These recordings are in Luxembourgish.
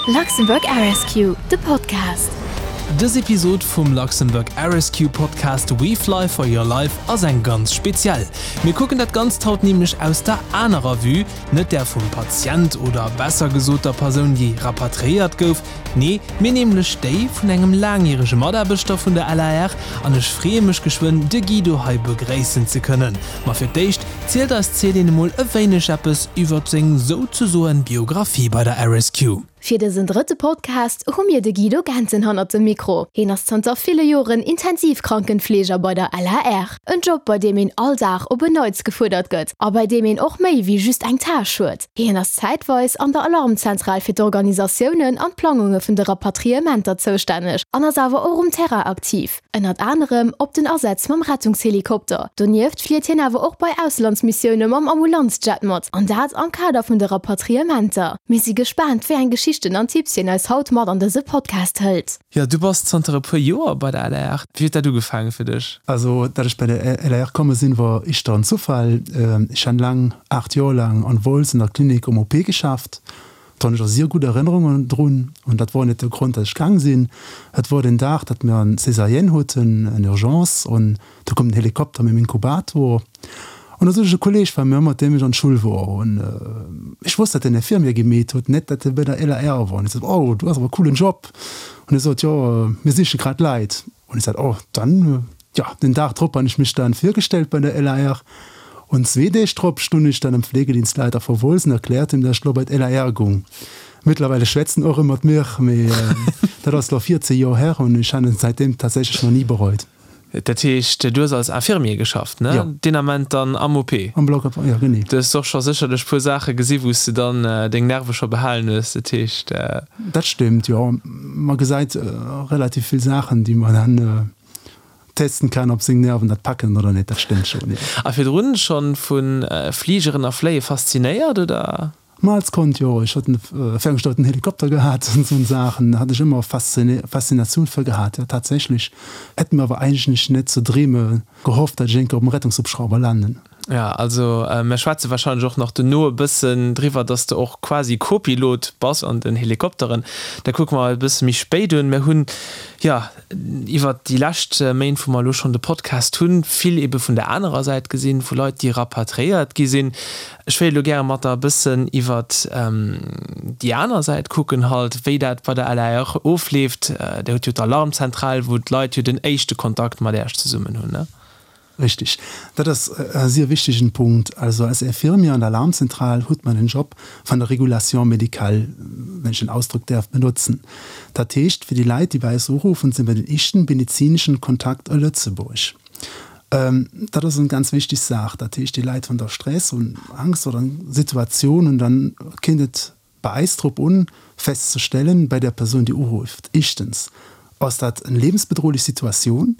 Luxembourg Air-Rescue, de Podcast. Dës Episod vum Luxembourg Air-Rescue Podcast We Fly for Your Life ass eng ganz speziell. Mir kucken dat Ganzt haut nämlech aus der anerer Vue, net där vum Patient oder besser gesot der Persoun déi rapatriéiert gouf, nee mir nämlech déi vun engem laangjärege Mataarbechter vun der LAR an ech freeë mech geschwënn de Guido hei begréissen ze kënnen. Ma fir d'éischt zielt eis d'Céline emol e wéineg eppes iwwert seng souzesoen Biographie bei der RSQ. Fir dësen drëtte Podcast hu mir de Guido Gentzen hannert dem Mikro. Hien ass zanter ville Joren Intensivkrankenfleeger bei der LAR. En Job bei deem een all Dag op en Neits gefuerdert gëtt a bei deem een och méi wéi just eng Tâche huet. Hien ass zäitweis an der Alarmzentral fir d'Organisatiounen an d'Plangunge vun de Rapatriementer zoustänneg an ass awer och um Terrain aktiv. Ënnert anerem op den Asätz mam Rettungshelikopter. Donieft flitt hien awer och bei Auslandsmissioune mam Ambulanzjet mat, an dat am Kader vun de Rapatriementer. Mir si gespaant, wéi eng Geschichten an Tipps hien eis haut mat an dëse Podcast hëlt. Jo, du bass zanter e puer Joer bei der LAR. Wéi huet dat ugefaange fir dech? Also, datt ech bei der LAR komme sinn, wor ischter en Zufall. Ech han laang, 8 Joer laang, an Wolz an der Klinik um OP geschafft. Do hunn ech och sier gutt Erënnerungen drun. An dat wor net de Grond, datt ech gaang sinn. Et wor den Dag, datt mir en Césarienne huten, en Urgence, an do koum den Helikopter mam Inkubator. An do sot ech e Kolleg war mir, mat deem ech an d'Schull wor, an ech wosst, datt en Infirmier gemeet huet, net datt e bei der LAR wor. An ech sot, Oh, du hues awer e coolen Job. An e sot, Jo, mir siche grad Leit. An ech sot, Oh, dann, jo. Den Dag drop han ech mech dann virgestellt bei der LAR. Und zwee Deeg drop stunn ech dann am Pflegedienstleiter vu Wolz an erkläert him, dass ech lo bei d'LAR gung. Mittlerweile schwätzt en och rëm mat mir, mee dat ass lo 14 Joer her an ech han et säitdeem tatsächlech nach ni bereut. Dat heescht, du hues als Infirmier geschafft, ne? Jo. Deen Ament dann am OP? Am Block op, jo, genee. Du hues och scho sécherlech puer Saache gesi wou s de dann deng Nerve scho behalen hues, dat heescht. Dat stimmt, jo. Ma gesäit relativ vill Saachen, déi man dann testen kann, ob seng Nerven dat packen oder net. Dat stimmt schon, jo. A virdrun schonn vu Fligeren a Fléie faszinéiert, oder? Ma als Kand, jo. Ech hat en ferngesteuerten Helikopter gehat an esou Saachen. Hat ech ëmmer Faszinatioun fir gehat, jo, tatsächlech. Hätt mir awer eigentlech net ze dreeme gehofft, dat ech eng Kéier op dem Rettungshubschrauber landen. Ja, also mär schwätze wahrscheinlech och nach dono e bëssen driwwer, dass de och quasi Co-Pilot bass an den Helikopteren. Dat kucke mer e bësse méi spéit un. Mär hunn, jo, iwwert déi lescht Méint, wou mer elo schonn de Podcast hunn, vill ebe vun der anerer Säit gesinn, vu Leit, déi rapatriéiert gi sinn. Ech wéilt elo gäre mat der e bëssen iwwert déi aner Säit kucken halt, wéi dat bei der LAR ofleeft. Där hutt jo d'Alarmzentral, wou d'Leit jo den éischte Kontakt mat Äech zesummen hunn, ne? Richtig. Dat ass e sier wichtegen Punkt. Also als Infirmier an der Alarmzentral hutt man den Job van der Régulation médicale, wenn ech den Ausdrock däerf benotzen. Dat heescht, fir déi Leit, déi bei eis uruffen, si mir den éischten medezinischen Kontakt a Lëtzebuerg. Dat ass eng ganz wichteg Saach. Dat heescht, déi Leit hunn da Stress, hunn Angst oder eng Situatioun an dann kéint et bei eis drop un, festzestellen, bei der Persoun, déi urufft, éischtens, ass dat eng lebensbedrohlich Situatioun?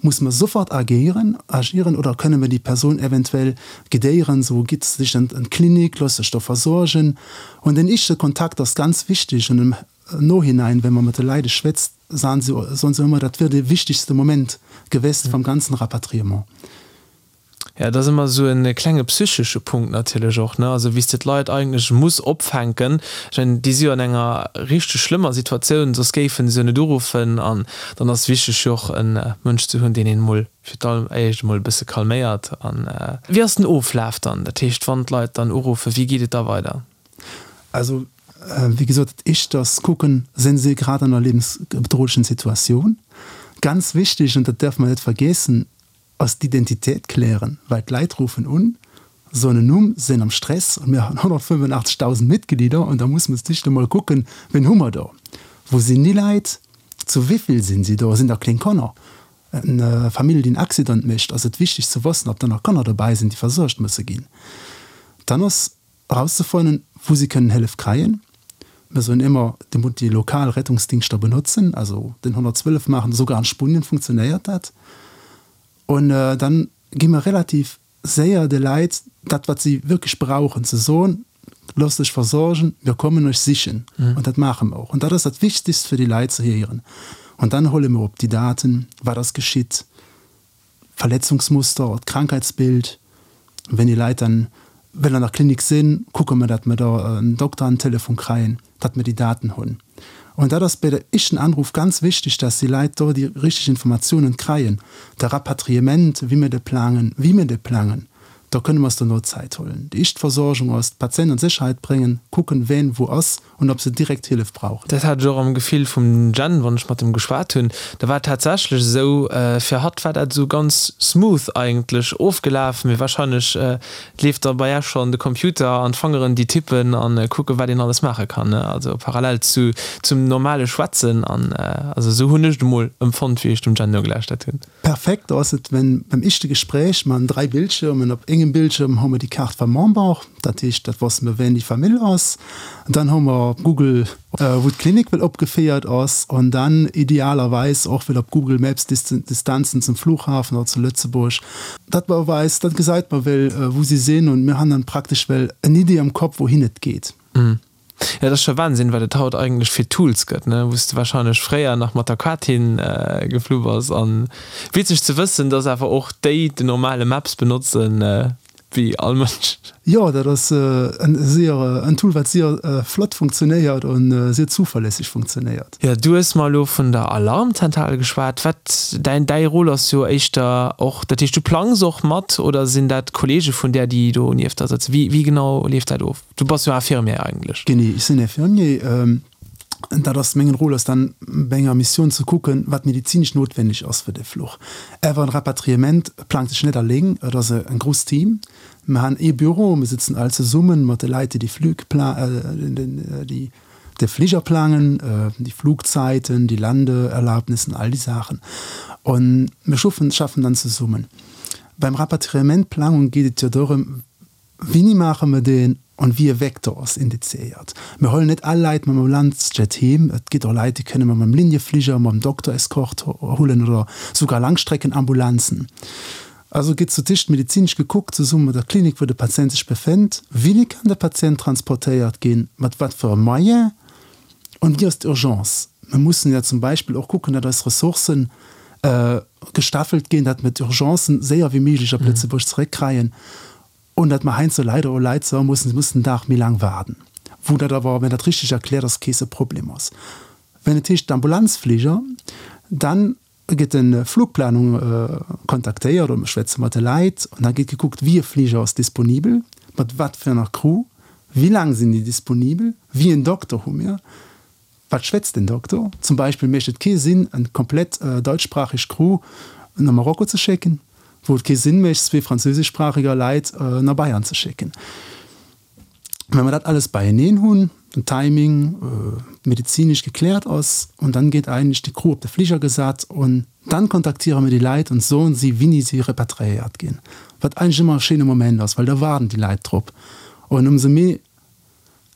Muss mer sofort agéieren, agieren, oder kënne mer déi Persoun eventuell guidéieren, sou, gitt sech an d'Klinik, loosst sech do versuergen. Und den éischte Kontakt ass ganz wichteg und im Nohinein, wenn mer mat de Leide schwätzt, soen se, soen se ëmmer, dat wier de wichtigste Moment gewest vum ganzen Rapatriement. Ja, et ass ëmmer esou e klenge psychesche Punkt natierlech och, ne? Also wéi s de d'Leit eigentlech muss opfänken. Ech mengen, déi si jo an enger richteg schlëmmer Situatioun, soss géife se jo net uruffen. An dann ass wichteg jo och e Mënsch ze hunn, deen een emol fir d'alleréischt emol e bësse calméiert. An wéi ass den Oflaf dann? Dat heescht, wann d'Leit dann uruffen, wéi geet et da weider? Also, wéi gesot, dat éischt ass kucken, sinn si grad an enger liewensbedrohlechen Situatioun? Ganz wichteg, an dat däerfe mer net vergeessen, ass d'Identitéit klären, well d'Leit ruffen un, soen en Numm, sinn am Stress an mir hunn 185.000 Mitglieder an da muss mer sich emol kucken, wien hu mer do, wou sinn déi Leit, zu wéivill sinn si do, sinn da kléng Kanner, eng Famill déi en Accident mécht, ass et wichteg ze wëssen, ob da nach Kanner dobäi sinn, déi versuergt musse ginn. Dann ass erauszefannen, wou si kënnen Hëllef kréien. Mir soen ëmmer, Dir musst déi lokal Rettungsdingschter benotzen, also den 112 maachen, esouguer an Spunien funktionéiert dat. Und dann gi mer relativ séier de Leit dat, wat si wierklech brauchen, ze soen, Loosst lech versorgen, mir kommen iech sichen. Und dat maache mer och. Und dat ass dat Wichtigst fir déi Leit ze héieren. Und dann huele mer op déi Daten, wat ass geschitt, Verletzungsmuster, d'Krankheitsbild, wenn déi Leit dann. Well an der Klinik sinn, kucke mer, datt mer da en Dokter an den Telefon kréien, datt mer déi Daten hunn. Und dat ass bei der éischten Anruf ganz wichteg, datt déi Leit do déi richteg Informatiounen kréien. De Rapatriement, wéi mir de plangen, wéi mir de plangen, do kënne mer eis dono Zäit huelen. Déi éischt Versorgung ass, d'Patient an Sécherheit bréngen, kucken, ween wou ass und ob se direkt Hëllef brauchen. Dat hat ech och am Gefill vum Jen, wann ech mat em geschwat hunn. Da war et tatsächlech esou, fir hatt war dat esou ganz smooth eigentlech ofgelaf, mee wahrscheinlech leeft da bei Äech schonn de Computer an d'Fangeren déi tippen an kucken, wat een alles maache kann, ne? Also parallel zu zum normale Schwätzen an also esou hunn ech et emol empfonnt, wéi ech dem Jen nogelauschtert hunn. Perfekt ass et, wenn beim éischte Gespräch mer 3 Bildschirmen, op engem Bildschirm hu mer déi Kaart vam Member, dat heescht dat wosse mer ween déi Famill ass, dann hu mer op Google wou d'Klinik well opgeféiert ass an dann idealerweis och well op Google Maps d'Distanzen zum Flughafen oder zu Lëtzebuerg, dat mer weist, dat gesait mer well wou si sinn und mir han dann praktesch well en Idee am Kopp wouhin et geet. Jo, dat ass scho Wahnsinn, wat et haut eigentlech fir Tools gëtt, ne, wou s de wahrscheinlech fréier nach mat der Quatin geflu bass. An witzeg ze wëssen, dass awer och déi den normale Maps benotzen, wéi all Mënsch. Jo, dat ass en sier en Tool, wat sier flott funktionéiert an sier zuverlässig funktionéiert. Jo, du hues mer elo vun der Alarmzentral geschwat. Wat däin däi Rôle ass jo éischter och, dat heescht du plangs och mat oder sinn dat Kollege vun där, déi do nieft der sëtzen? Wéi wéi genau leeft dat of? Du bass jo Infirmier eigentlech. Genee, ech sinn Infirmier. Dat ass mengen Rôle ass dann bei enger Missioun ze kucken, wat medizinesch notwenneg ass fir de Fluch. Awer en Rapatriement plangt sech net alléng, et ass e grousst Team. Mir han ee Büro, mir sëtzen all zesummen mat de Leit, déi déi Flüg déi de Fliger plangen, déi Flugzeiten, déi Landeerlaubnissen, all déi Saachen. An mir schuffen schaffen dann zesummen. Beim Rapatriementplangung geet et jo dorëm, Wéini maache mer deen an wéi e Vecteur ass indiziéiert? Mir huelen net all Leit mam Ambulanzjet heem. Et gitt och Leit, déi kënne mer mam Liniefliger, mam Dokter-Escort huelen oder sougar Langstreckenambulanzen. Also gitt zu Tisch medizinesch gekuckt, zesumme mat der Klinik, wou de Patient sech befénnt, Wéini kann de Patient transportéiert ginn, mat wat fir e Moyen an wéi ass d'Urgence? Mir mussen jo zum Beispill och kucken, datt eis Ressourcen gestaffelt ginn, datt mir d'Urgencen séier wéi méiglech op Lëtzebuerg zeréckkreien und datt mer heiansdo leider och Leit soe mussen, si mussen en Dag méi laang waarden, wou dat awer, wenn dat richteg erkläert ass, kee Problem ass. Wenn et heescht d'Ambulanzfliger, dann gëtt de Flugplanung kontaktéiert oder mer schwätze mat de Leit an da gétt gekuckt, wéi e Fliger ass disponibel, mat wat fir enger Crew, wéi laang sinn déi disponibel, wéi en Dokter hu mir. Wat schwätzt den Doktor? Zum Beispill mécht et kee Sinn, en komplett deutschspracheg Crew no Marokko ze schécken, wou et kee Sinn mécht, zwee französischsprachiger Leit no Bayern ze schécken. Wa mer dat alles beieneen hunn, den Timing medezinesch gekläert ass, und dann gétt eigentlech déi Crew op de Fliger gesat und dann kontaktiere mir déi Leit und soen si, wini si repatriéiert ginn, wat eigentlech ëmmer e schéine Moment ass, well da waarden déi Leit drop. Und ëmsou méi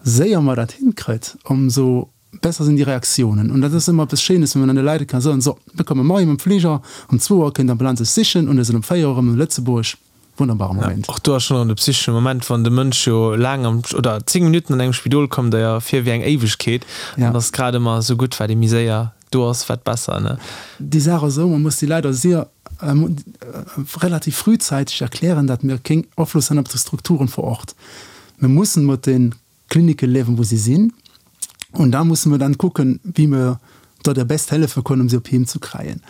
séier mer dat hinkritt, ëmsou besser sinn déi Reaktiounen. Und dat ass ëmmer eppes Schéines, wann een dann de Leit ka soen, So, mir komme moien mam Fliger, um zwou Auer kënnt d'Ambulanz iech sichen und mir sinn um véier Auer erëm un Lëtzebuerg. Wunnerbare Moment. Och do ass schonn erëm de psychesche Moment, wann de Mënsch jo laang am, oder 10 Minutten an engem Spidol kommt der jo vir wéi eng Éiwegkeet. An ass grad ëmmer esou gutt, wat ee méi séier do ass, wat besser, ne? Déi Saach ass esou, man muss déi Leit sier relativ frühzeitig erklären, datt mir kéng Afloss han op de Strukturen vor Ort. Mir mussen mat de Klinike liewen, wou si sinn, und da musse mir dann kucken, wéi mir do der best hellefe können, um si op Heem zu kreien.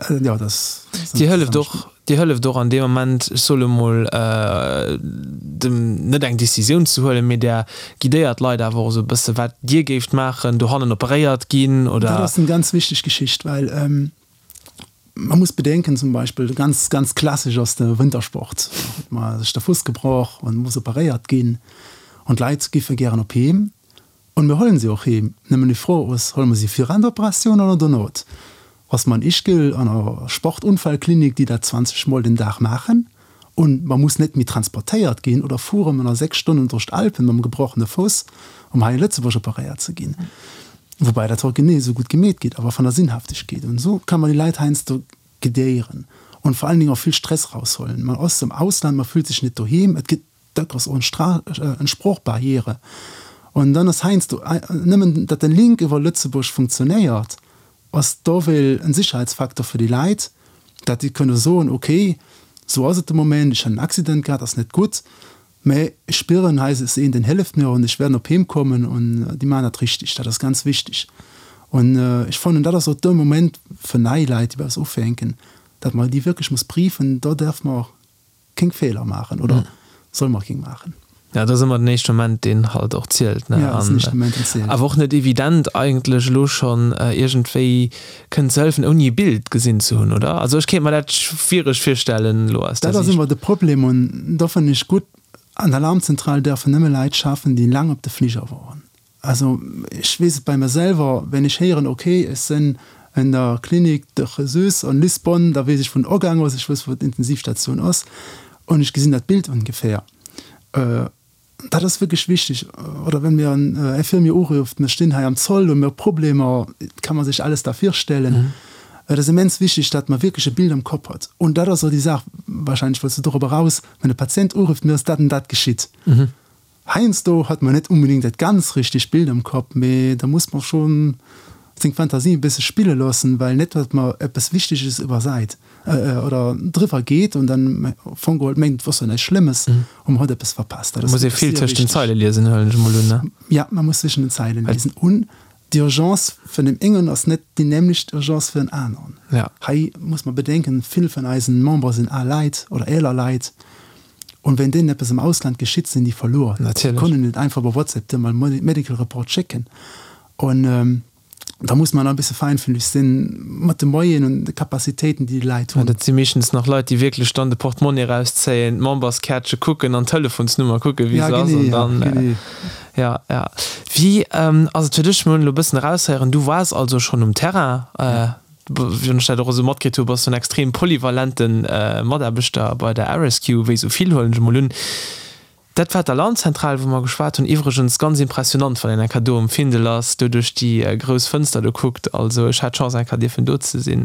Jo, dat ass. Dir hëlleft och, Dir hëlleft och an deem Moment, ech soe lo mol, dem net eng Décisioun ze huelen, mee Der guidéiert d'Leit awer och esou e bësse wat Dir géift maachen, dohannen operéiert ginn oder. Dat ass eng ganz wichteg Geschicht, well man muss bedenken, zum Beispill ganz, ganz klassesch ass de Wintersport, do huet man sech de Fuss gebrach an muss operéiert ginn an d'Leit giffe gären op Heem. Und mir huelen si och heem. Nëmmen déi Fro ass, huele mer si viraan der Operatioun oder donot? Ass mer an Ischgl an der Sportunfallklinik, déi dat 20 mol den Dag maachen, und mer muss net méi transportéiert ginn, oder fuere mer nach 6 Stonnen duerch d'Alpen mam gebrochene Fuss, um hei in Lëtzebuerg operéiert ze ginn? Woubäi dat haut genee esou gutt gemeet gétt, awer van der Sinnhaftegkeet. Und esou kann mer déi Leit heiansdo guidéieren und vor allen Dingen och vill Stress raushuelen. Man ass am Ausland, man fühlt sech net doheem, et gëtt Dat ass och eng Sproochbarriere. An dann ass heiansdo nëmmen, datt de Link iwwer Lëtzebuerg funktionéiert, ass dowéil en Sicherheitsfaktor fir déi Leit, datt déi kënne soen, okay, esou ass et de Moment, ech hunn en Accident gehat, ass net gutt. Mä ech spieren, hei ass een, deen hëlleft mir an ech wäert op heem kommen an déi maachen dat richteg. Dat ass ganz wichteg. An ech fannen, dat ass och de Moment fir nei Leit, déi bei eis ufänken, datt mer déi wierklech muss briefen. Do däerf mer keng Feeler maachen oder soll mer keng maachen. Ja, dat ass ëmmer den éischte Moment, deen halt och zielt, ne? Ja, dat ass den éischte Moment, deen zielt. Awer och net evident eigentlech elo schonn iergendwéi kënnen ze hëllefen, ouni e Bild gesinn ze hunn, oder? Also ech kéint mer dat schwiereg virstellen elo aus der Siicht. Dat ass ëmmer de Problem an do fannen ech gutt, an der Alarmzentral däerfen nëmme Leit schaffen, déi laang op de Fliger woren. Also ech weess et bei mer selwer, wenn ech héieren, ok, ech sinn en der Klinik de Jesus an Lisbonne, da weess ech wou den Ogang ass, ech wëss wou d'Intensivstation ass an ech gesinn dat Bild ongeféier. Dat ass wierklech wichteg. Oder wenn mir en Infirmier urufft, mir stinn hei am Zoll, hu mir Problemer, kann man sech alles da virstellen. Et ass immens wichteg, datt mer wierklech e Bild am Kopp hat. Und dat ass och déi Saach, wahrscheinlech wollts du dorop eraus, wenn e Patient urufft, mir ass dat an dat geschitt. Heiansdo hat mer net unbedingt dat ganz richtegt Bild am Kapp, mee da muss mer schon seng Fantasie e bësse spille loossen, well net datt mer eppes Wichteges iwwersait oder driwwer geet an dann am Fong geholl mengt et wor jo näischt Schlëmmes an mer huet eppes verpasst. Dat ass Muss ee vill tëscht den Zeile liesen, huelen ech emol un, ne? Ja, man muss zwischen den Zeilen lesen. Un d'Urgence vun deem engen ass net déi nämlecht Urgence fir en aneren. Ja. Hei muss mer bedenken, vill vun eisen Membere sinn al Leit oder eeler Leit. Und wenn deenen eppes am Ausland geschitt, sinn déi verluer. Natierlech. Déi können net einfach iwwer WhatsApp dir mal Medical Report schécken. Und da muss man e bësse feinfühlig sinn mat de Moyenen und de Capacitéiten, déi déi Leit hunn. Dat si meeschtens nach Leit, déi wierklech dann de Portemonnaie erauszéien, d'Memberskärtche kucken an d'Telefonsnummer kucken, wéi Ja, se ass. genee, An ja, dann, genee. ja, ja. Wéi ass et fir dech? Mir hunn elo e bëssen eraushéieren, du waars also schonn um Terrain. Ja. Wéi ech dat och esou matkritt hu, bass du en extrem polyvalente Mataarbechter bei der RSQ, wéi esou vill, huelen ech emol un. Dat war d'Alarmzentral, wou mer geschwat hunn. Iwwregens ganz impressionant, wann een eng Kéier do um Findel ass, do duerch déi grouss Fënster do kuckt. Also ech hat d'Chance, eng Kéier dierfen do ze sinn.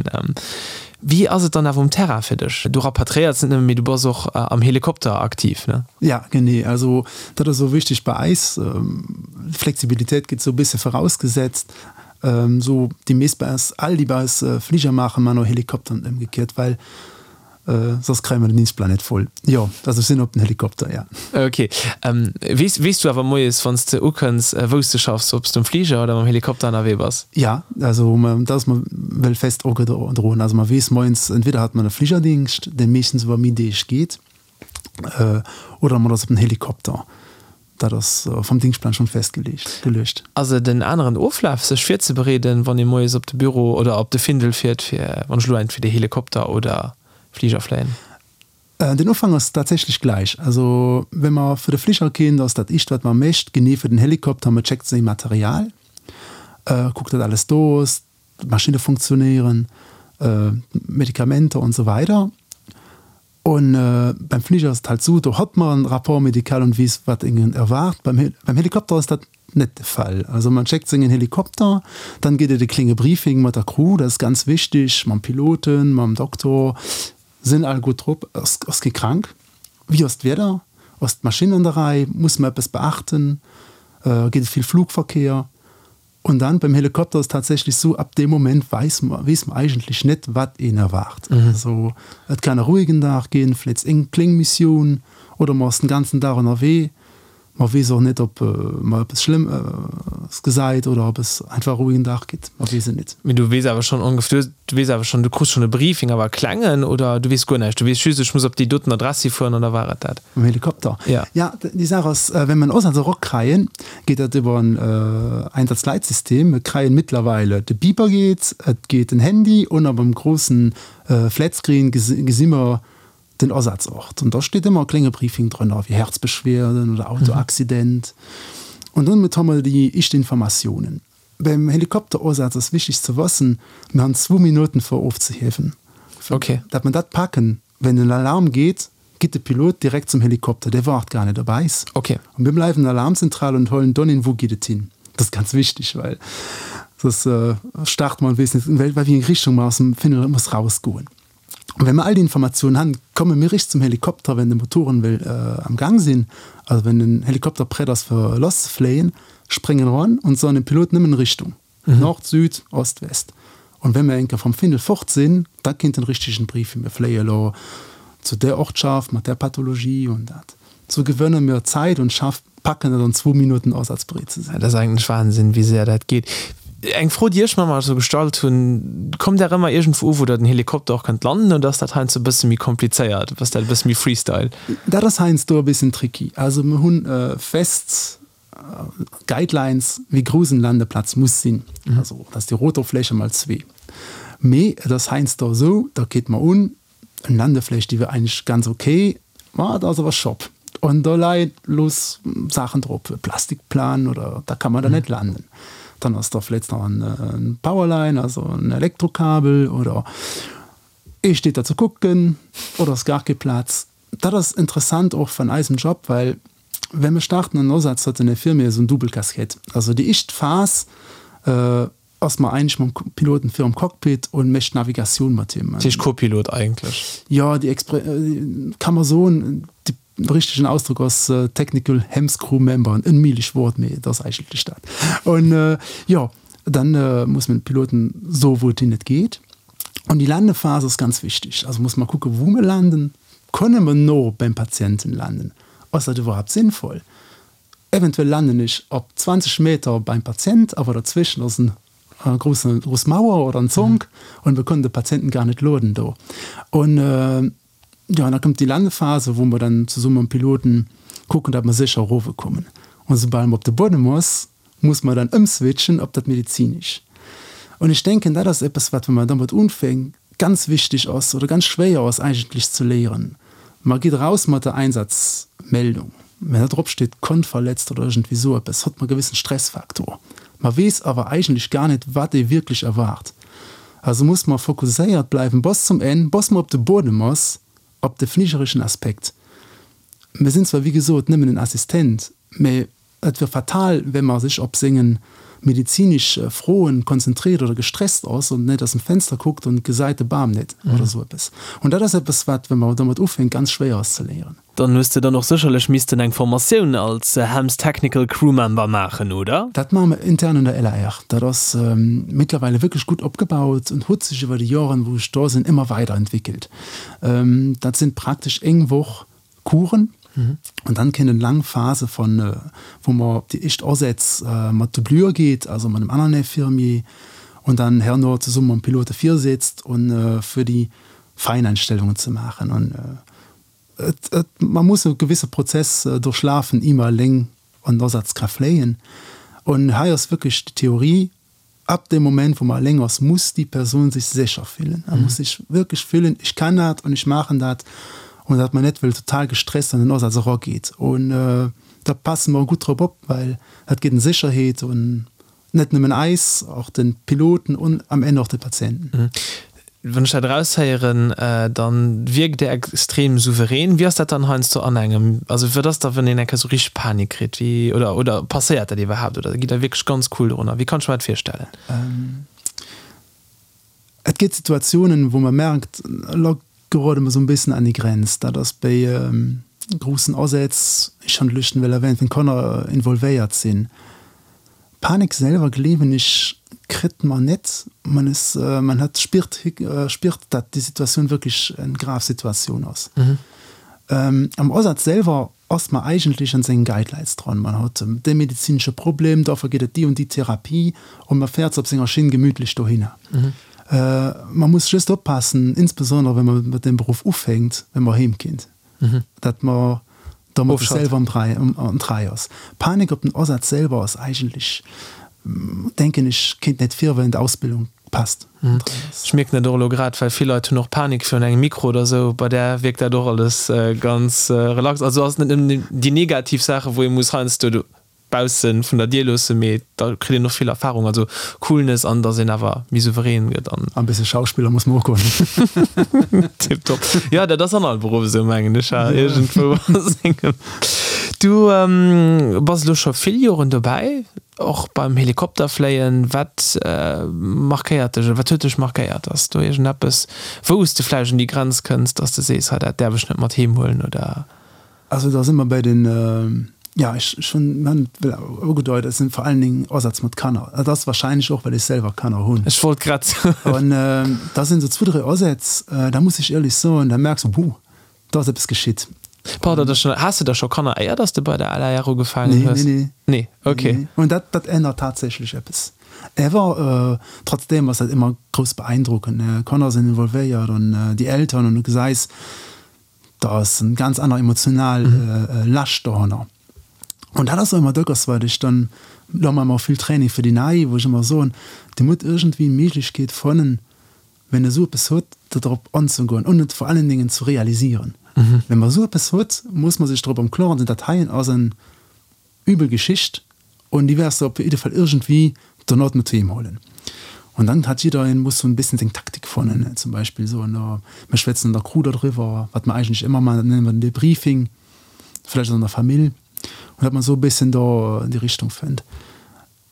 Wéi ass et dann awer um Terrain fir dech? Du rapatriéiers net nëmmen, mee du bass och am Helikopter aktiv, ne? Ja, genee. Also dat ass och wichteg bei eis. Flexibilitéit gëtt esou e bësse vorausgesetzt. Sou déi meest bei eis, all déi bei eis Fliger maachen, man och Helikopter an ëmgekiert, well soss kréie mer den Dienstplan net voll. Jo, also ech sinn op den Helikopter, ja. Ok. Weess, weess du awer moies, wann s de ukënns, wou s de schaffs, ob s de um Fliger oder mam Helikopter ënnerwee bass? Ja, also dat ass mer well fest ogedroen. Also mer weess moies, entweder hat mer e Fligerdingscht, dee meeschtens iwwer méi Deeg geet, oder mer ass op den Helikopter. Dat ass vum Dingschtplan schonn festgeleegt geluecht. Ass et en aneren Oflaf sech virzebereeden, wann ee moies op de Büro oder op de Findel fiert, fir wann ech elo entweder Helikopter oder Fliger fléien? Den Ufank ass tatsächlech gläich. Also wa mer fir de Fliger ginn, da ass dat éischt wat mer mécht, genee fir den Helikopter, mer checkt séi Material, kuckt dat alles do ass, d'Maschinne funktionéieren, d'Medikamenter an esou weider. Un beim Fliger ass et halt sou, do hat mer en Rapport médical an weess wat een erwaart. Beim beim Helikopter ass dat net de Fall. Also man schéckt sengen Helikopter, dann geet et e klénge Briefing mat der Crew, dat ass ganz wichteg, mam Piloten, mam Doktor, sinn all gutt drop, ass ass kee krank, wéi ass d'Wieder, ass d'Maschinn an der Rei, muss mer eppes beachten, geet et vill Flugverkehr. Und dann beim Helikopter ass tatsächlich sou, ab deem Moment weis mer, weess mer eigentlech net, wat een erwaart. Also et kann e ruhigen Dag ginn, vläicht eng kléng Missioun, oder mer ass den ganzen Dag ënnerwee. Mer weess och net, ob mer eppes Schlëmmes gesäit oder ob es einfach e ruhigen Dag gitt, mer weess et net. Mee du weess awer schonn ongef, du weess awer schonn, du krus schonn e Briefing, awer e klengen, oder du weess guer näischt, du weess just, ech muss op déi doten Adress hifueren an da war et dat? Mam Helikopter? Ja. Ja, déi Saach ass, wenn mer en Asaz erakreien, geet dat iwwer en Einsatzleitsystem. Mir kreien mittlerweile, de Beeper geet, et geet den Handy un a beim grossen Flatscreen gesi mer den Asazort. An da steet ëmmer e klénge Briefing drënner, wéi Herzbeschwerden oder Autoaccident. An domat hu mer déi éischt Informatiounen. Beim Helikopterasaz ass wichteg ze wëssen, mir han zwou Minuten fir ofzehiewen. Okay. Dat mer dat packen, wenn den Alarm geet, geet de Pilot direkt zum Helikopter, dee waart gar net op eis. Okay. An mir bleiwen an der Alarmzentral und huelen dann een, wou geet et hin. Dat ass ganz wichteg, well soss start mer an weess net, in wéi eng Richtung mer aus dem Findel muss rausgoen. An wenn mer all déi Informatiounen han, komme mir richt zum Helikopter, wenn de Motoren wëll am Gang sinn, also wenn den Helikopter prett ass fir lasszefléien, spréngen eran und soen dem Pilot nëmmen Richtung, Nord, Süd, Ost, West. Und wenn mer enker vom Findel fort sinn, da kinnt den richtegen Briefing, mir fléie lo zu där Ortschaft mat där Pathologie und dat. Sou gewënne mir Zäit und schaff packen et an zwou Minutten asazbereet ze sinn. Dat ass eigentlech Wahnsinn, wéi séier dat geet. Eng Fro, déi ech mer emmer esou gestallt hunn, Kommt Der ëmmer iergendwou u, wou der den Helikopter och kënnt landen, oder ass dat heiansdo e bësse méi komplizéiert? Ass dat e bësse méi Freestyle? Dat ass heiansdo e bëssen tricky. Also mir hunn fest Guidelines, wéi grouss en Landeplatz muss sinn. Also dat ass déi Rotorfläche mal zwee. Mee et ass heiansdo esou, da geet mer un, En Landefläch, déi wier eigentlech ganz ok, ma et ass awer Shop an do leie loos Saachen drop, e Plastikplan oder da kann man da net landen. Dann ass da vläicht nach en Powerline, also en Elektrokabel oder ee steet da ze kucken oder ass gar kee Plaz. Dat ass interessant och van eisem Job, well wenn mir starten an Ersatz huet den Infirmier esou en double Casquette. Also déi éischt Phas, Ass mer eigentlech mam Piloten virum Cockpit und mécht d'Navigatioun mat him. Dat heescht Co-Pilot eigentlech? Jo, déi Expre kann mer soen, de richtegen Ausdrock ass Technical HEMS Crew Member, en onméiglech Wort, mee et ass eigentlech dat. Und jo, dann muss mer de Piloten soen, wou et hin et geet. Und déi Landephase ass ganz wichteg. Also muss mer kucken, wou mer landen. Kënne mer no beim Patienten landen? Ass dat iwwerhaapt sinnvoll? Eventuell landen ech op 20 Meter beim Patient, awer derzwischen ass en grousse grouss Mauer oder en Zonk und wir können de Patienten gar net loaden do. Und jo, an da kommt déi Landephase, wou mer dann zesumme mam Piloten kucken, datt mer sécher erowekommen. Und soubal mer op de Buedem ass, muss mer dann ëmswitchen op dat Medizinesch. Und ech denken, dat ass eppes, wat, wa mer domat unfänken, ganz wichteg ass oder ganz schwéier ass eigentlech ze léieren. Mer geet eraus mat der Einsatzmeldung, mä da drop steet Kont verletzt oder iergendwéi esou eppes, hott mer gewissen Stressfaktor. Mer weess awer eigentlech gar net, wat ee wierklech erwaart. Also muss mer fokusséiert bleiwen bis zum Enn, bis mer op de Buedem ass, op de fligereschen Aspekt. Mir sinn zwar wéi gesot nëmmen en Assistent, mä Et wier fatal, wenn mer sech op sengen medizinesch Froen konzentriert oder gestresst ass und net aus dem Fenster kuckt und gesait de Bam net oder sou eppes. Und dat ass eppes wat, wenn mer domat ufänkt, ganz schwéier ass ze léieren. Dann hues de dann och sécherlech missten eng Formatioun als HEMS Technical Crew Member maachen, oder? Dat maache mer intern an der LAR. Dat ass mittlerweile wierklech gutt opgebaut und huet sech iwwer déi Joren, wou ech do sinn, ëmmer weiderentwickelt. Dat sinn praktesch eng Woch Coursen und dann kënnt eng laang Phase von wou mer op déi éischt Asätz mat Doublure geet, also mat engem aneren Infirmier und dann herno zesumme mam Pilote virsitzt und fir déi Feineinstellungen ze maachen. Und et, et, man muss e gewisse Prozess durchlafen, ier mer eleng an den Asaz ka fléien. Und hei ass wierklech déi Theorie, Ab dem Moment, wou man eleng ass, muss déi Persoun sech sécher fillen. A muss sech wierklech fillen, ech kann dat an ech maachen dat. An datt man net wëll total gestresst an den Asaz erageet. Un da passe mer gutt drop op, well dat geet ëm Sécherheet un net nëmmen eis, och de Piloten un am Enn och de Patienten. Wann ech dat eraushéieren, dann wierkt Dir extrem souverän. Wéi ass dat dann heiansdo an engem, also wat ass da wann een eng Kéier sou richteg Panik kritt, wéi, oder, oder passéiert dat iwwerhaapt oder gitt Der wierklech ganz cool dorunner? Wéi kann ech mer dat virstellen? Et gétt Situatiounen, wou man merkt, elo gerode mer sou en bëssen an déi Grenz. Dat ass béi groussen Asätz, ech han d'Lëschten well erwähnt, wenn Kanner involvéiert sinn. Panik selwer gleewen ech kritt man net, man is man hat spiert spiert dat déi Situatioun wierklech eng grav Situatioun ass. Am Asaz selwer ass man eigentlech an sengen Guidelines dran, man hat dee medezinesche Problem, dofir geet et déi und déi Therapie und man fährt op senger Schinn gemütlech dohinner. Man muss just oppassen, insbesondere wenn man mat deem Beruff ufänkt, wenn man heem kinnt. Dat mer dermat sech selwer am Trei ass. Panik op den Asaz selwer ass eigentlech, denken ech, kéint net vir, well en d'Ausbildung passt. Ech mierken dat och elo grad, well vill Leit hunn och Panik virun engem Mikro oder esou. Bei där wierkt dat och alles ganz relax. Also ass net nëmmen déi negativ Saachen, wou ee muss heiansdo baussen vun der Dier loossen, mee da kritt een och vill Erfahrung, also Coolness an dass een awer méi souverän gëtt an. An bësse Schauspiller muss mer och goen. Tiptop. Jo, dat ass an all Beruff esou, mengen ech, ha, iergendwou a sengem. Du bass elo scho vill Joren dobäi, och beim Helikopterfléien. Wat markéiert dech oder wat huet dech markéiert? Ass do iergendeppes, wou s de vläicht un déi Grenz kënns, dass de sees, hei dat däerf ech net mat heem huelen oder? Also da si mer bei den, jo, ech hunn et ugedeit, et sinn vor allen Dingen Asätz mat Kanner. Dat ass wahrscheinlech och, well ech selwer Kanner hunn. Ech wollt grad soen. An da sinn esou zwou, dräi Asätz, da muss ech éierlech soen, da merks de, Huh, do ass eppes geschitt. Pardon, dat schon, has de da scho Kanner éier dass de bei der LAR ugefaangen hues? Nee, nee, nee. Nee, okay. Nee, nee. Und dat, dat ännert tatsächlech eppes. Awer trotzdem ass dat ëmmer grouss beeindruckend, ne? Kanner sinn involvéiert an déi Eltern an du gesäis, da ass en ganz aner emotional Lascht dohanner. An dat ass och ëmmer dacks, wat ech dann, lo maache mer och vill Training fir déi Nei, wou ech ëmmer soen, Dir musst iergendwéi Méiglechkeet fannen, wenn e sou eppes huet, do drop anzegoen und et vor allen Dingen zu realisieren. Wenn mer sou eppes huet, muss mer sech drop am Kloren sinn, dat heien ass en übel Geschicht und déi wäers de op jidde Fall iergendwéi dono mat heem huelen. Und dann hat jiddereen muss sou en bëssen seng Taktik fannen, zum Beispill soen, oh, mir schwätzen an der Crew dodriwwer, wat mer eigentlech ëmmer maachen, dat nennen mer den Debriefing, vläicht an der Famill, und dat mer sou e bëssen do an déi Richtung fënnt.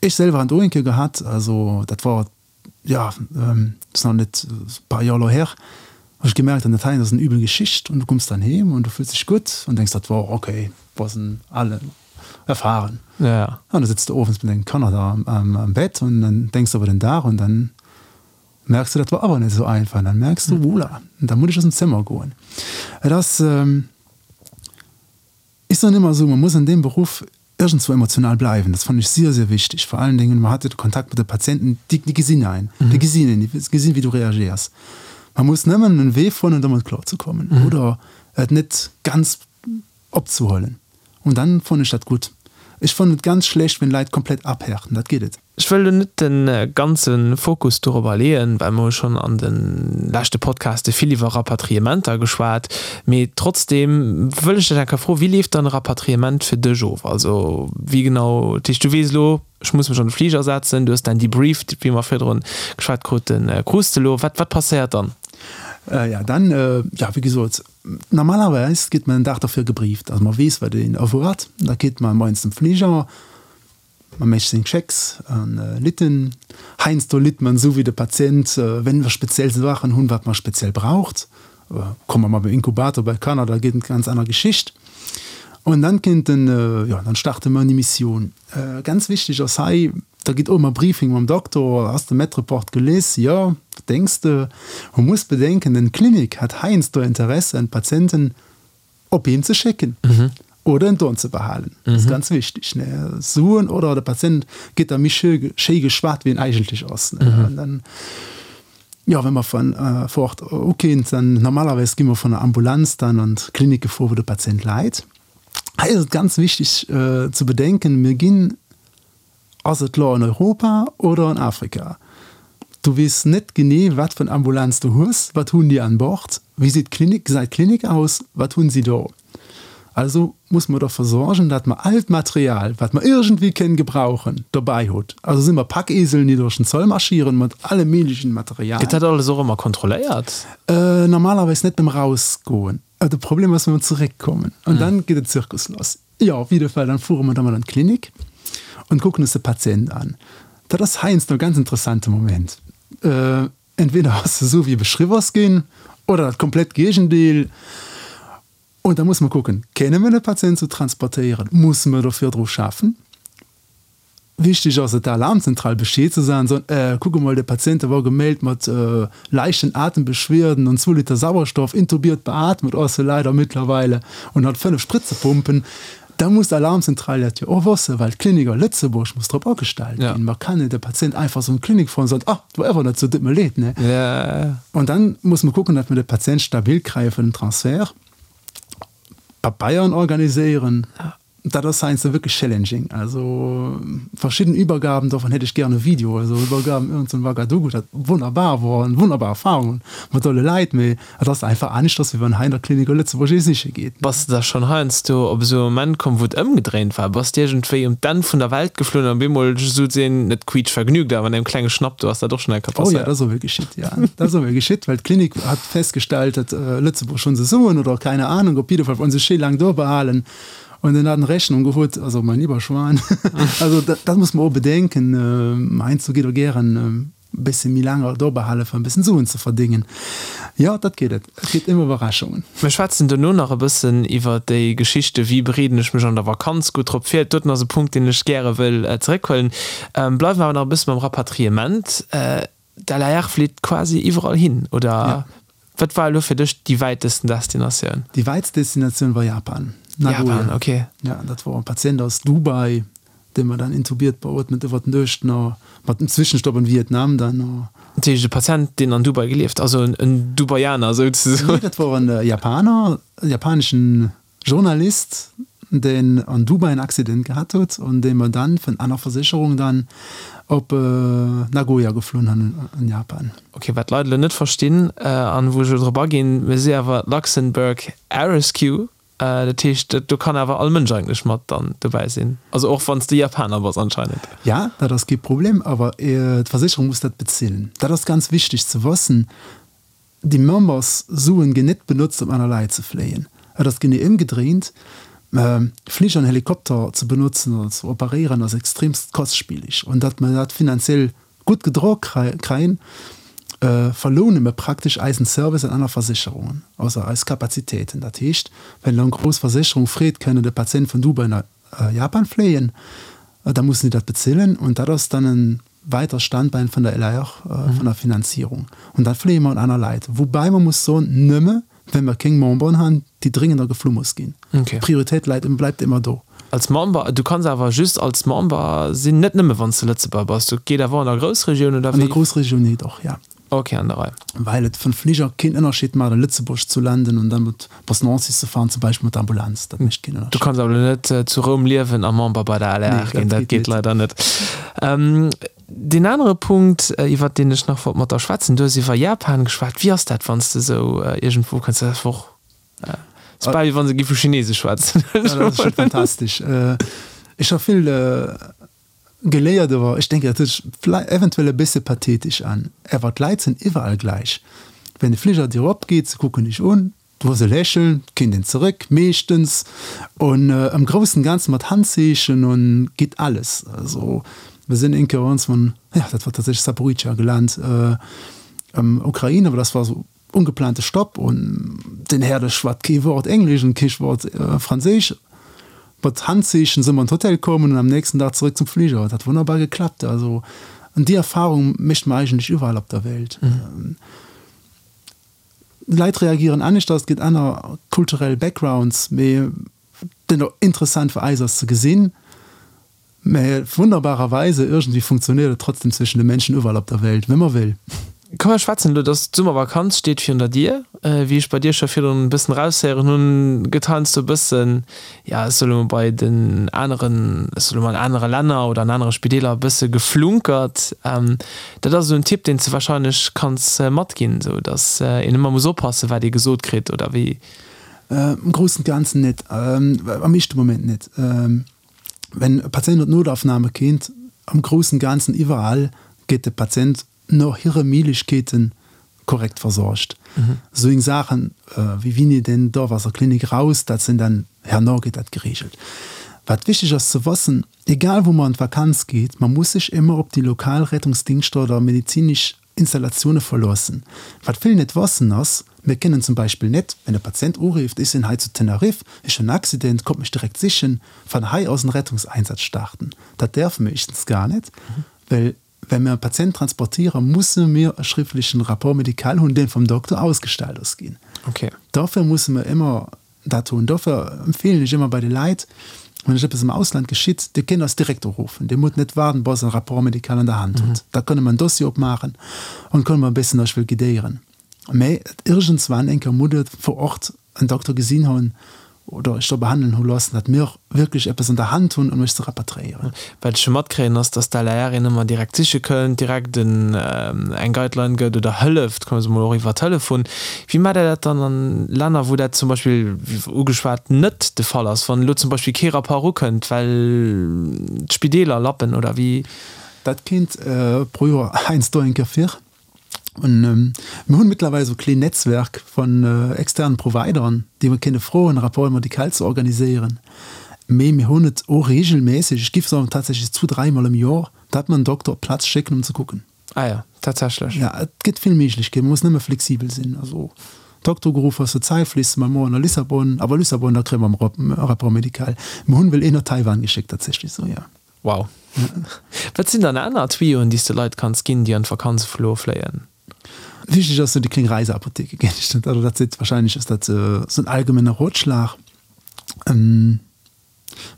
Ech selwer han et och eng Kéier gehat, also dat war jo, ass nach net e paar Joer elo her, hu ech gemerkt, an dat heien ass en übel Geschicht und du kommst dann heem und du fills dech gutt und denkst, dat wor ok, wor en ale erfahren. Ja. An da sitzt du owends mat dengen Kanner da am Bett und dann denkst du iwwer den Dag und dann merkst du, dat wor awer net esou einfach und dann merkst du, wola, da muss ech aus dem Zëmmer goen. Et ass. Ech soen ëmmer esou, man muss an deem Beruff iergendzwou emotional bleiwen. Dat fannen ech sier, sier wichteg. Vor allen Dingen, man hat jo de Kontakt mat de Patienten, déi, déi gesinn ein, déi gesinn een, déi gesinn, wéi du reagéiers. Man muss nëmmen en Wee fannen, domat kloer ze kommen oder et net ganz opzehuelen. Und dann fannen ech dat gutt. Ech fannen et ganz schlecht, wenn Leit komplett abhärten, dat geet et. Ech wëll lo net de ganze Fokus dorobber leeën, well mer hu schonn an de leschte Podcaste vill iwwer Rapatriementer geschwat. Mee trotzdeem wëll ech dech eng Kéier froen, Wéi leeft dann e Rapatriement fir dech of? Also wéi genau, dat heescht du weess elo, ech muss mech an de Fliger setzen, du hues däin Debrief, wéi mer virdrun geschwat kruten, krus de elo. Wat, wat passéiert dann? Jo, dann, jo, wéi gesot, normalerweis gétt man en Dag derfir gebrieft, also man weess, wat een erwaart. Da geet man moies zum Fliger. Man mécht seng Checks an Litten. Heiansdo litt man esou wéi de Patient, wenn mer speziell Saachen hunn, wat man speziell braucht. Komme mer beim Inkubator bei Kanner, da geet et ganz aner Geschicht. Und dann kinnt den, jo, dann starte mer an déi Missioun. Ganz wichteg ass hei, da gitt och ëmmer Briefing mam Doktor, Has de Med-Report gelies? Jo. Wat denks de? Man muss bedenken, den Klinik hat heiansdo Interesse, en Patienten op heem ze schécken oder en don ze behalen. Dat ass ganz wichteg. Ne? Suen oder de Patient gëtt da méi schéi, schéi geschwat, wéi en eigentlech ass. Ne? An dann, jo, wa mer von äh, vor Ort ukinn, dann normalerweis gi mer von der Ambulanz dann an d'Klinik gefuer, wou de Patient läit. Hei ass et ganz wichteg äh, ze bedenken, mir ginn Ass et lo an Europa oder an Afrika? Du weess net genee wat fir en Ambulanz du hues, wat hunn déi an Bord, wéi seet d'Klinik, gesäit d'Klinik aus, wat hunn si do? Also muss mer derfir sorgen, dat mer all d'Material, wat mer iergendwéi kënnen gebrauchen, dobäi hutt. Also si mer Packieseln, déi duerch den Zoll marschieren mat allem méiglechen Material. Gëtt dat alles och ëmmer kontrolléiert? Normalerweis net beim Rausgoen. De Problem ass, wa mer zeréckkommen an dann geet den Zirkus lass. Jo, op jidde Fall, dann fuere mer da mol an d'Klinik und kucken uns de Patient an. Dat ass heiansdo e ganz interessante Moment. Entweder ass e sou wéi e beschriww ass ginn oder dat komplett Géigendeel. Und da musse mer kucken, Kenne mer de Patient sou transportéieren? Musse mer do virdru schaffen? Wichteg ass et der Alarmzentral Bescheed ze soen, soen, Äh, kuck emol, de Patient, dee wor gemellt mat leichten Atembeschwierden an zwou Liter Sauerstoff, intubiert, beatmet ass e leider mittlerweile und hat 5 Spritzepumpen. Da muss d'Alarmzentral dat jo och wëssen, well d'Klinik a Lëtzebuerg muss drop agestellt ginn. Mer kann net e Patient einfach sou an d'Klinik fueren an soen, Ah, et wor awer net sou, tut mir leed, ne? Und dann muss mer kucken, datt mer de Patient stabil kréie fir den Transfert, Pabeieren organiséieren. Dat ass heiansdo wierklech challenging. Also verschidden Übergaben, dovun hätt ech gären e Video, also Übergaben iergend zu Ouagadougou, dat wonnerbar wor, eng wonnerbar Erfahrung mat alle Leit, mee et ass einfach aneschters, wéi wann hei an der Klinik a Lëtzebuerg ee siche geet. Bass de da schonn heiansdo op esou e Moment komm, wou et ëmgedréint war? Bass de iergendwéi um d'Enn vun der Welt geflunn an op eemol souzesoen, net quietschvergnügt, awer an engem klenge Schnapp, do ass dat och schonn eng Kéier Oh jo, dat passéiert? ass och geschitt, jo. Dat ass och geschitt, well d'Klinik hat festgestellt, datt Lëtzebuerg schonn se soen oder keine Ahnung, op jidde Fall wollen se schéi laang do behalen. Und dann hat en Rechnung gehuet, also mein lieber Schwan, also dat, dat muss man och bedenken, heiansdo geet och gären e bësse méi laang do behale fir e bëssen Suen ze verdéngen. Jo, dat geet et, et gëtt ëmmer Iwwerraschungen. Mir schwätzen dono nach e bëssen iwwer déi Geschichte wéi bereeden ech mech an der Vakanz gutt drop vir. Doten ass e Punkt, deen ech gäre wëll zeréckhuelen. Bleiwe mer awer nach e bësse beim Rapatriement. D'LAR flitt quasi iwwerall hin, oder? Wat war elo fir dech déi wäitesten Destinatioun? Déi wäitst Destinatioun war Japan, Nagoya. Japan, okay. Ja, dat wor e Patient aus Dubai, dee mer dann intubiert, beootmet iwwer d'Nuecht no, mat dem Zwischenstopp an Vietnam dann no. Dat heescht e Patient, deen an Dubai gelieft, also en Dubaianer souzesoen? Nee, dat wor en Japaner, e japaneschen Journalist, deen an Dubai en Accident gehat huet an dee mer dann vun aner Versécherung dann op Nagoya geflunn hunn an Japan. Ok, wat d'Leit elo net verstinn an wou ech elo drop aginn, mir si awer Luxembourg Air Rescue, dat heescht do kann awer all Mënsch eigentlech mat dann dobäi sinn, also och wann s de Japaner bass anscheinend. Ja, dat ass kee Problem, awer d'Versécherung muss dat bezilen. Dat ass ganz wichteg ze wëssen. Déi Memberssuen ginn net benotzt om aner Leit ze fléien. Et ass genee ëmgedréint, Fliger an Helikopter ze benotzen oder ze operéieren ass extremst kostspieleg. An datt mer dat finanziell gutt gedro kréien, verloune mer praktesch eisen Service an aner Versécherungen, also eis Kapazitéiten. Dat heescht, wenn elo eng grouss Versécherung freet, kënne de Patient vun Dubai no Japan fléien, da mussen déi dat bezilen. Und dat ass dann en weiter Standbein vun der LAR, vun der Finanzierung. Und dat fléie mer un aner Leit. Woubäi mer muss soen, nëmme well mer kéng Memberen han, déi dringender geflu muss ginn. D'Prioritéit läit, bleibt ëmmer do. Als Member, du kanns awer just als Member sinn, net nëmme wann s de Lëtzebuerger bass, dat geet awer och an der Groussregioun, oder wéi? An der Groussregioun net och, ja. Ok, an der Rei. Well et vun Fliger keen Ënnerscheed maat a Lëtzebuerg zu landen an dann mat bis Nancy ze fahren zum Beispill mat der Ambulanz, dat mécht keen Ënnerscheed. Du kanns awer elo net zu Roum liewen a Member bei der LR ginn, dat geet leider net. Deen anere Punkt iwwert deen ech nach wollt mat der schwätzen, du hues iwwer Japan geschwat, wéi ass dat wann s de esou iergendwou kënns, dat ass och, ass bal wéi wann se géife Chinesesch schwätzen. Dat ass scho fantastesch. Ech ha vill Geléiert, awer ech denken, dat huet sech eventuell e bësse pathetesch an. Awer d'Leit sinn iwwerall gläich. Wenn de Fliger dir opgeet, se kucken dech un, du hues e Lächeln, kéint een zeréck, meeschtens, an am groussen Ganzen mat Handzeechen an geet alles. Also mir sinn eng Kéier ons van, jo dat war tatsächlech Zaporizhzhia gelant, am Ukraine, awer dat war esou Ungeplante Stopp un den Här, de schwat kee Wort Englesch un kee Wort Franséisch. Mat Handzeechen sinn mer an d'Hotel komm an am nächsten Dag zeréck zum Fliger. Et hat wonnerbar geklappt. Also an déi Erfahrung mécht mer eigentlech iwwerall op der Welt. D'Leit reagieren aneschters, et gëtt aner kulturell Backgrounds, mee den interessant fir eis ass ze gesinn, Mä wunderbarerweise, irgendwie funktioniert et trotzdem zwischen de Menschen überall op der Welt, wenn man will. Komm mer schwätzen elo, dass d'Summervakanz steet virun der Dier. Wéi ech bei dir scho virdrun e bëssen eraushéieren hunn, gëtt heiansdo e bëssen, ja ech soe lo mol bei den aneren, ech soe lo mol an anere Länner oder an anere Spideeler e bësse geflunkert. Dat ass esou en Tipp, deen s de wahrscheinlech kanns matginn, esou dass een ëmmer muss oppassen, wat ee gesot kritt, oder wéi? Am groussen Ganzen net, am éischte Moment net. Wenn e Patient an d'Notaufnahme kéint, am groussen Ganzen iwwerall gétt de Patient no hire Méiglechkeeten korrekt versorgt. Esou eng Saachen wéi wini deen dorf aus der Klinik raus, dat sinn dann herno gétt dat geregelt. Wat wichteg ass ze wëssen, egal wou mer an d'Vakanz geet, mer muss sech émmer op déi lokal Rettungsdingschter oder medizinesch Installatioune verloossen. Wat vill net wëssen ass, Mir kënnen zum Beispill net, wenn e Patient urifft, ech sinn hei zu Tenerife, ech hunn en Accident, kommt mech direkt sichen, van hei aus en Rettungseinsatz starten. Dat däerfe mir éischtens gar net, well wenn mir e Patient transportieren, musse mir e schriftlechen Rapport médical hunn, deen vum Dokter ausgestellt ass ginn. Dofir musse mir ëmmer Dat hunn. Dofir empfeelen ech ëmmer bei de Leit, wann iech eppes am Ausland geschitt, Dir kënnt eis direkt uruffen. Dir musst net waarden, bis Der en Rapport médical an der Hand hutt. Da kënne mer en Dossier opmaachen an kënne mer e bëssen iech wëll guidéieren. Mä iergendswann eng Kéier musst Dir vor Ort en Dokter gesinn hunn oder iech do behandelen hu loossen, datt mir wierklech eppes an der Hand hunn, um iech ze rapatriéieren. Wat ech jo matkréien, ass, dass d'LAR een ëmmer direkt siche kënnt, direkt en eng Guideline gëtt oder hëlleft, kommen se mol och iwwer Telefon. Wéi maacht Der dat dann an Länner, wou dat zum Beispill, wéi ugeschwat, net de Fall ass, wann elo zum Beispill kee Rapport erukënnt, well d'Spideeler lappen oder wéi? Dat kéint pro Joer heiansdo eng Kéier vir. Mir hunn mittlerweile esou kleen Netzwerk vun externen Provideren, déi mer kënne froen, Rapports médicaux ze organiséieren. Mee mir hunn et och regelmässeg, ech giff soen tatsächlech zwo, dräimol am Joer, datt mer en Dokter op d'Plaz schécken, um ze kucken. Ah jo, tatsächlech. Ja, et gëtt vill Méiglechkeeten, man muss nëmme flexibel sinn. Also Dokter geruff ass, zur Zäit fliss mer moien a Lissabon, awer Lissabon, da kréie mer e Rapport médical. Mir hunn well een no Taiwan geschéckt tatsächlech, sou jo. Wow. Wat sinn dann aner Tuyauxen, déi s de Leit kanns ginn, déi an d'Vakanz elo fléien? Wichtig ass sou déi kléng Reiseapotheke, géint ech dat, also dat seet wahrscheinlech ass dat sou en allgemenger Rotschlag.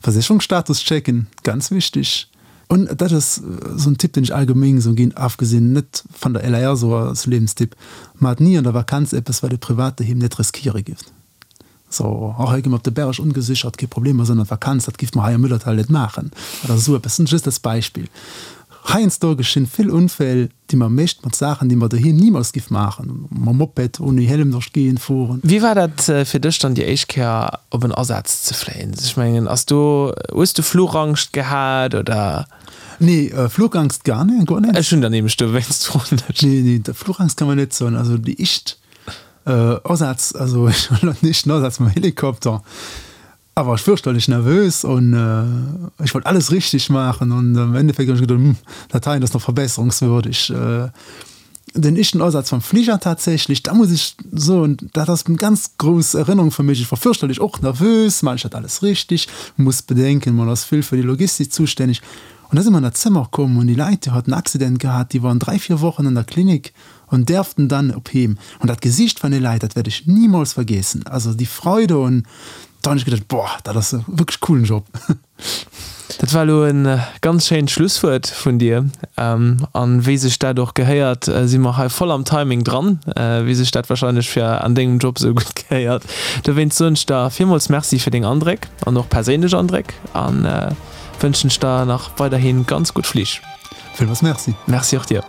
Versécherungsstatus checken, ganz wichtig. Un dat ass sou en Tipp deen ech allgemeng sou ginn, afgesinn net van der LAR sou als Lebenstipp, Maacht ni an der Vakanz eppes wat dir privat doheem net riskiere gifft. So, och hei gi mer op de Berg ongesichert, kee Problem, mer sinn an der Vakanz, dat giff mer hei am Müllertal net maachen oder esou eppes, just als Beispill. Heiansdo geschinn vill Unfäll, déi mer mécht mat Saachen, déi mer doheem nimools giff maachen, mam Moped ouni Helm duerch d'Géigend fueren. Wéi war dat fir dech dann déi éischt Kéier op en Asaz ze fléien? Ech mengen, ass do, hues du Fluchangst gehat oder? Nee, Fluchangst gar net, guer net. Ech hunn der nämlech dowéinst froen ech. Nee, nee, Fluchangst kann mer net soen. Also déi éischt Asaz, also ech hunn den éischten Asaz mam Helikopter, awer ech fürchterlech nervös an ech wollt alles richteg maachen an am Endeffekt hunn ech geduet, hm, dat heien ass nach verbesserungswürdig. Den éischten Asaz mam Fliger tatsächlech, da muss ech soen, dat ass eng ganz grouss Erënnerung fir mech. Ech war fürchterlech och nervös, maachen ech dat alles richteg? Muss bedenken, man ass vill fir déi Logistik zustänneg. An da si mer an dat Zëmmer komm an déi Leit, déi haten en Accident gehat, déi waren 3, 4 Wochen an der Klinik an därften dann op Heem. An dat Gesicht van de Leit, dat werd ech niemals vergessen. Also déi Freude un da hun ech gedacht, boah, dat ass e wierklech coolen Job. Dat war elo e ganz schéint Schlusswuert vun dir. An wéi sech dat och gehéiert, si mer hei voll am Timing dran, wéi sech dat wahrscheinlech fir an dengem Job esou gutt gehéiert. Dowéinst soen ech der villmools Merci fir deng Andréck an och perséinlech Andréck a wënschen ech der nach weiderhi ganz gutt Flich. Villmools Merci. Merci och dir.